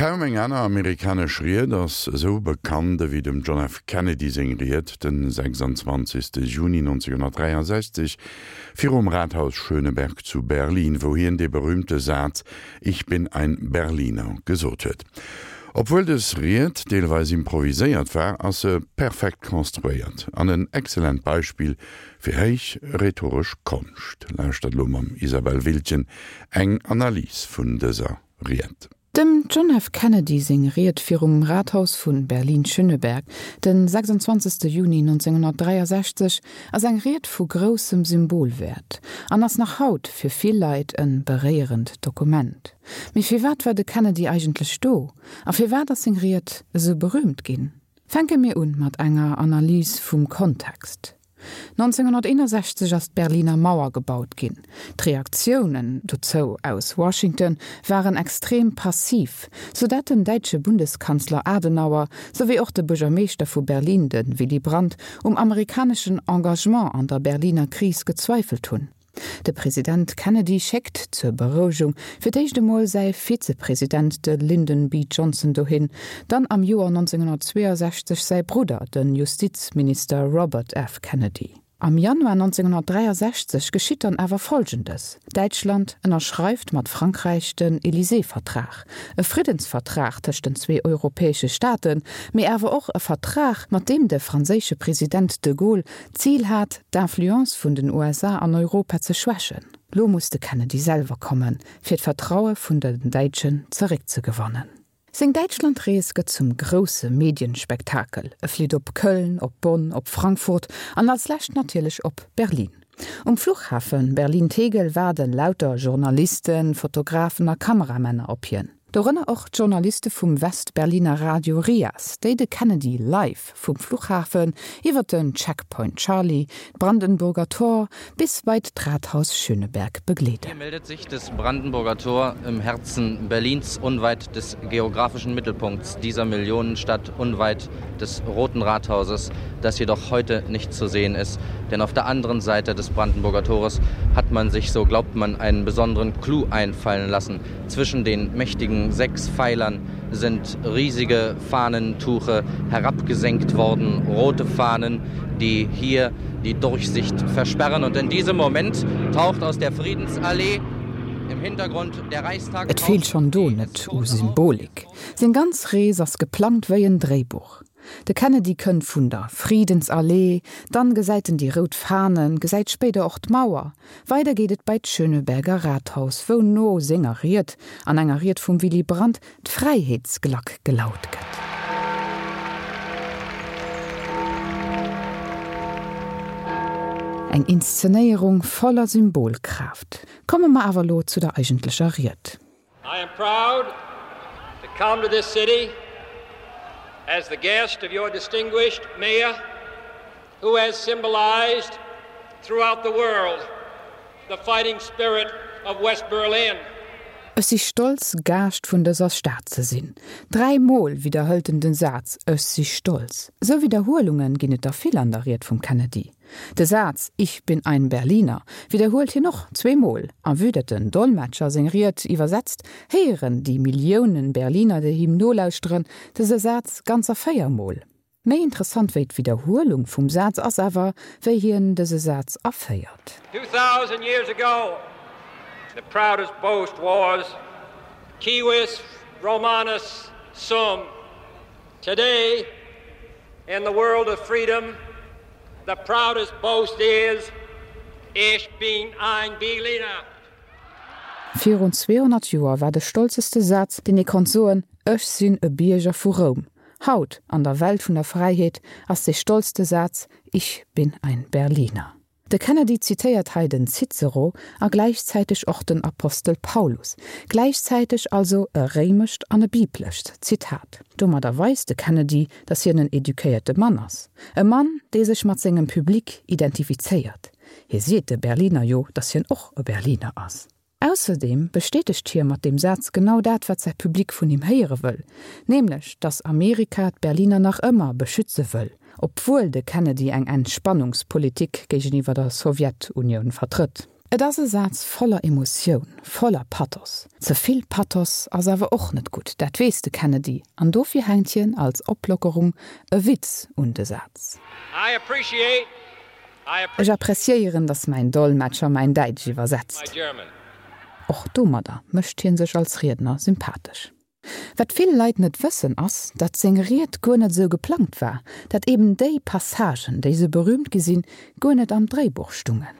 Kaum eng aner amerikanesch Ried ass esou bekannt ewéi dem John F. Kennedy seng Ried den 26. Juni 1963 virum Rathaus Schöneberg zu Berlin, wou hien dee berüümte Saz Ich bin ein Berliner gesot huet. Obwuel dës Ried deelweis improviséiert war, ass se perfekt konstruéiert an en excellent Beispill fir héich rhetoresch Konscht. Lauschtert elo mam Isabelle Wiltgen eng Analys vun dëser Ried. Dem John F. Kennedy seng Ried virum Rathaus vu Berlin-Schöneberg den 26. Juni 1963 ass eng Ried vu groussem Symbolwäert an ass nach haut fir vill Leit e beréierend Dokument. Mee firwat war de Kennedy eigentlech do a firwat ass seng Ried esou berüümt ginn? Fänke mir un mat enger Analys vum Kontext. 1961 ass d'Berliner Mauer gebaut ginn. D'Reaktiounen dozou aus Washington waren extrem passiv, sou dat den däitsche Bundeskanzler Adenauer souwéi och de Buergermeeschter vu Berlin, de Willy Brandt, um amerikaneschen Engagement an der Berliner Kris gezweifelt hunn. De President Kennedy schéckt zur Berouegung fir d'éischt emol säi Vizepresident, de Lyndon B. Johnson dohin, dann am Joer 1962 säi Brudder, de Justizminister Robert F. Kennedy. Am Januar 1963 geschitt dann awer Folgendes, Däitschland ënnerschreift mat Frankräich den Élysée-Vertrag, e Friddensvertrag tëscht den zwee europäesche Staaten, mee awer och e Vertrag, mat deem de franséische President de Gaulle D'Zil hat, d'Influence vun den USA an Europa ze schwächen. Lo muss de Kennedy selwer kommen, fir d'Vertraue vun den Däitschen zeréckzegewannen. Seng Däitschlandrees gëtt zum grousse Medienspektakel, e flitt op Köln, op Bonn, op Frankfurt an als lescht natierlech op Berlin. Um Fluchhafe Berlin-Tegel waarde lauter Journalisten, Fotografen a Kameramänner op hien. Dorënner och d'Journaliste vum West-Berliner Radio RIAS, déi de Kennedy live vum Fluchhafen iwwer den Checkpoint Charlie, d'Brandenburger Tor bis bei d'Rathaus Schöneberg begleeden. Hier meldet sich das Brandenburger Tor im Herzen Berlins, unweit des geografischen Mittelpunkts dieser Millionenstadt, unweit des Roten Rathauses, das jedoch heute nicht zu sehen ist, denn auf der anderen Seite des Brandenburger Tores hat man sich, so glaubt man, einen besonderen Clou einfallen lassen. Zwischen den mächtigen sechs Pfeilern sind riesige Fahnentuche herabgesenkt worden, rote Fahnen, die hier die Durchsicht versperren. Und in diesem Moment taucht aus der Friedensallee im Hintergrund der Reichstag Et feelt schonn do net u Symbolik. Seng ganz Rees ass geplangt wéi en Dréibuch. De Kennedy kënnt vun der Friedensallee, dann gesäit en déi rout Fahnen, gesäit spéider och d'Mauer. Weider geet et bei d'Schöneberger Rathaus, wou no senger Ried an enger Ried vum Willy Brandt d'Fräiheetsglack gelaut gëtt. Eng Inszenéierung voller Symbolkraaft. Komme mer awer lo zu der eigentlecher Ried. I am proud to come to this city as the guest of your distinguished mayor who has symbolized throughout the world the fighting spirit of West Berlin. Ech si stolz, Gaascht vun dëser Stad ze sinn. 3 Mol widderhëlt en den Saz Ech si stolz. Esou Widderhuelunge ginn et der vill an der Ried vum Kennedy. De Saz Ich bin ein Berliner widderhuelt hien och zweemol, a vue dat den Dolmetscher seng Ried iwwersetzt, héieren déi Milliounen Berliner, déi him nolauschteren, dëse Saz ganzer 4 Mol. Méi interessant wéi d'Widderhuelung vum Saz ass awer, wéi hien dëse Saz aféiert. 2000 years ago the proudest boast was, Civis Romanus sum. Today, in the world of freedom, the proudest boast is, Ich bin ein Berliner. Virun 200 Joer war de stolzeste Saz, deen ee konnt soen, Ech sinn e Bierger vu Roum. Haut, an der Welt vun der Fräiheet, ass dee stolzste Saz, Ich bin ein Berliner. De Kennedy zitéiert hei den Cicero a gläichzäiteg och den Apostel Paulus, gläichzäiteg also e réimescht an e biblescht Zitat. Domadder weist de Kennedy, datt hien en eduquéierte Mann ass, e Mann, dee sech mat sengem Public identifizéiert. Hie seet de Berliner jo, datt hien och e Berliner ass. Ausserdeem bestätegt hie mat deem Saz genau dat, wat säi Public vun him héiere wëll, nämlech datt Amerika d'Berliner nach ëmmer beschütze wëll, obwuel de Kennedy eng Entspannungspolitik géigeniwwer der Sowjetunioun vertrëtt. Et ass e Saz voller Emotioun, voller Pathos. Ze vill Pathos ass awer och net gutt, dat weess de Kennedy, an dofir hänkt hien als Oplockerung e Witz un de Saz. Ech appreciéieren, datt mäin Dolmetscher mäin Däitsch iwwersetzt. Och domadder mécht hie sech als Riedner sympathesch. Wat vill Leit net wëssen ass, datt seng Ried guer net esou geplangt war, datt eben déi Passagen, déi sou berühmt gi sinn, guer net am Dréibuch stungen.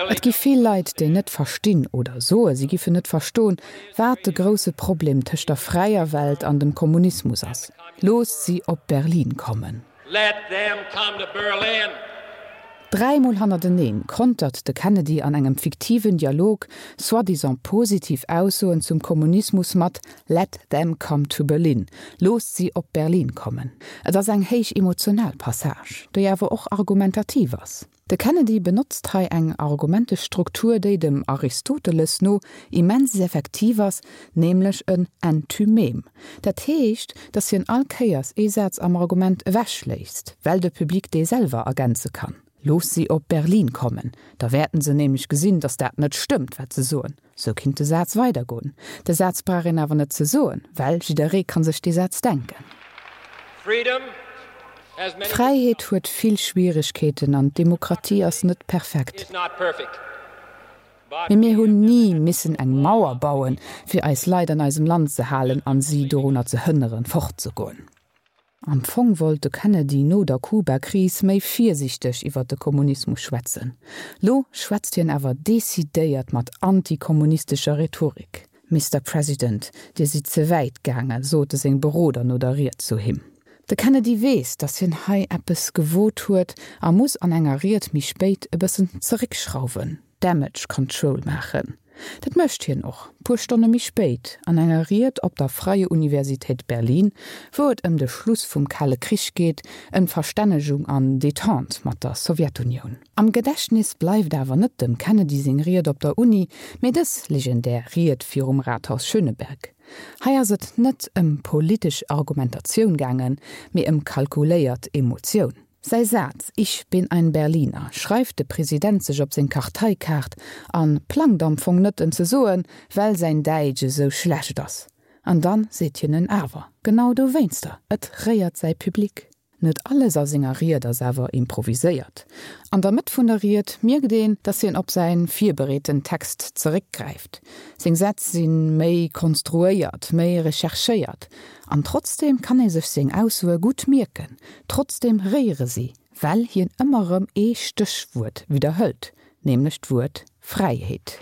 Et gi vill Leit, déi net verstinn oder soe si giffen net verstoen, wat de grousse Problem tëscht der fräier Welt an dem Kommunismus ass. Loosst si op Berlin kommen. Let them come to Berlin! Dräimol hannerteneen kontert de Kennedy an engem fiktiven Dialog soi-disant positiv Aussoen zum Kommunismus mat Let them come to Berlin, Loosst si op Berlin kommen. Et ass eng héich emotional Passage, déi awer och argumentativ ass. De Kennedy benotzt hei eng Argumentestruktur, déi dem Aristoteles no immens effektiv ass, nämlech en Enthymem. Dat heescht, datt hien all Kéiers ee Saz am Argument ewechléisst, well de Public dee selwer ergänze kann. Looss si op Berlin kommen, da wäerten se nämlech gesinn, datt dat net stëmmt, wat se soen. Sou kinnt de Saz weidergoen. De Saz brauch een awer net ze soen, well jidderee kann sech dee Saz denken. D'Fräiheet huet vill Schwieregkeeten an d'Demokratie ass net perfekt. Mee mir hunn ni missen eng Mauer bauen, fir eis Leit an eisem Land ze halen an si dorunner ze hënneren, fortzegoen. Am Fong wollt de Kennedy no der Kuba-Kris méi virsiichteg iwwer de Kommunismus schwätzen. Lo schwätzt hien awer decidéiert mat antikommunistescher Rhetorik. Mister President, Dir sidd ze wäit gaangen, sote seng Beroder no der Ried zu him. De Kennedy weess, datt hien hei eppes gewot huet a muss an enger Ried méi spéit e bëssen zeréckschrauwen. Damage Control maachen. Dat mécht hien och, puer Stonne méi spéit, an enger Ried op der Freie Universität Berlin, wou et ëm de Schluss vum Kale Krich geet, ëm d'Verstännegung an Detente mat der Sowjetunioun. Am Gedächtnis bleift awer net dem Kennedy seng Ried op der Uni, mee dës legendär Ried virum Rathaus Schöneberg. Hei ass et net ëm politesch Argumentatioun gaangen, mee ëm kalkuléiert Emotioun. Säi Saz Ich bin ein Berliner schreift de President sech op seng Karteikaart an plangt am Fong net en ze soen, well säin Däitsch esou schlecht ass. An dann seet hien en awer, genau dowéinster, et réiert säi Public. Net alles a senger Ried ass awer improviséiert. An der Mëtt vun der Ried mierkt een, datt hien op säi virbereeten Text zeréckgräift. Seng Sätz si méi konstruéiert, méi recherchéiert. An trotzdeem kann ee sech seng Aussoe gutt mierken, trotzdeem réiere si, well hien ëmmer erëm ee Stéchwuert widderhëlt, nämlech d'Wuert Fräiheet.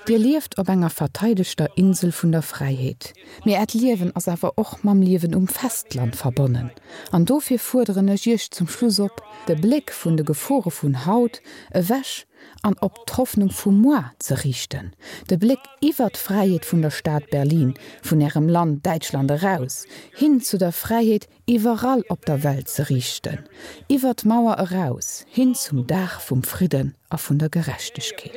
Dir lieft op enger verteidegter Insel vun der Fräiheet, mee Äert Liewen ass awer och mam Liewen um Festland verbonnen. An dofir fuerderen ech Iech zum Schluss op, de Bléck vun de Gefore vun haut ewech an op d'Hoffnung vu moar ze riichten, de Bléck iwwer d'Fräiheet vun der Stad Berlin, vun Ärem Land Däitschland eraus, hin zu der Fräiheet iwwerall op der Welt ze riichten, iwwer d'Mauer eraus, hin zum Dag vum Fridden a vun der Gerechtegkeet.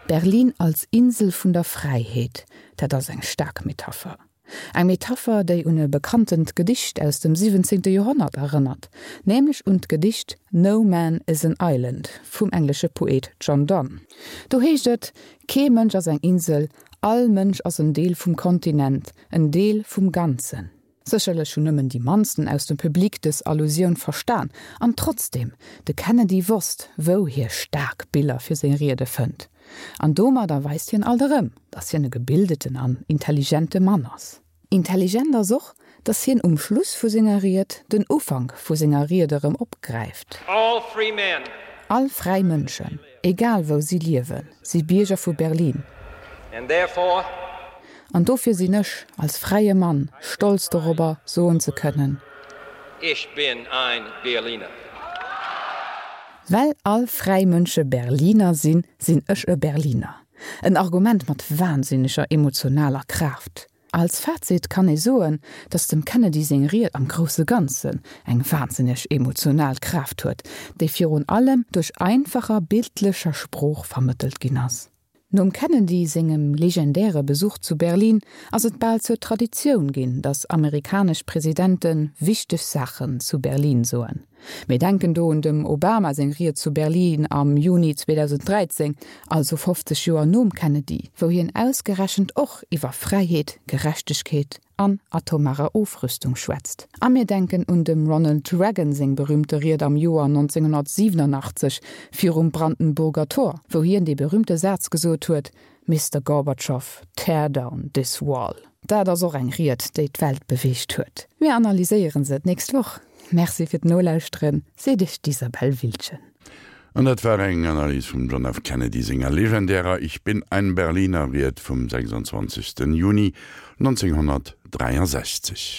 Berlin als Insel vun der Fräiheet, dat ass eng staark Metapher. Eng Metapher, déi un e bekanntent Gedicht aus dem 17. Joerhonnert erënnert, nämlech un d'Gedicht No Man is an Island vum englesche Poet John Donne. Do heescht et, Kee Mënsch ass eng Insel, all Mënsch ass en Deel vum Kontinent, en Deel vum Ganzen. Sécherlech hunn nëmmen déi mannsten aus dem Public dës Allusioun verstan, an trotzdeem, de Kennedy wosst, wou hie staark Biller fir seng Riede fënnt. An domadder weist hien alt erëm, datt hien e gebildeten an intelligente Mann ass. Intelligent ass och, datt hien um Schluss vu senger Ried den Ufank vu senger Ried erëm opgräift. All free men. All fräi Mënschen, egal wou si liewen, si Bierger vu Berlin. And therefore. An dofir sinn ech, als fräie Mann, stolz dorobber, soen ze kënnen. Ich bin ein Berliner. Well all fräi Mënsche Berliner sinn, sinn ech e Berliner. En Argument mat wahnsinneger emotionaler Kraaft. Als Fazit kann ee soen, datt dem Kennedy seng Ried am grousse Ganzen eng wahnsinneg emotional Kraaft huet, déi virun allem duerch einfacher bildlecher Sprooch vermëttelt ginn ass. Nom Kennedy sengem legendäre Besuch zu Berlin ass et bal zur Traditioun ginn, datt amerikanesch Presidente wichteg Saachen zu Berlin soen. Mir denken do un dem Obama seng Ried zu Berlin am Juni 2013, also 50 Joer nom Kennedy, wou hien ausgerechent och iwwer Fräiheet, Gerechtegkeet an atomarer Ofrüstung schwätzt. A mir denken un dem Ronald Reagan seng berühmte Ried am Joer 1987 virum Brandenburger Tor, wou hien dee berühmte Saz gesot huet, Mister Gorbatschow, tear down this wall. Dat ass och eng Ried, déi d'Welt beweegt huet. Mir analyséiere se d'nächst Woch. Merci fir d'Nolauschteren, seet iech d'Isabelle Wiltgen. An dat war eng Analys vum John F. Kennedy senger legendärer Ich bin ein Berliner Ried vum 26. Juni 1963.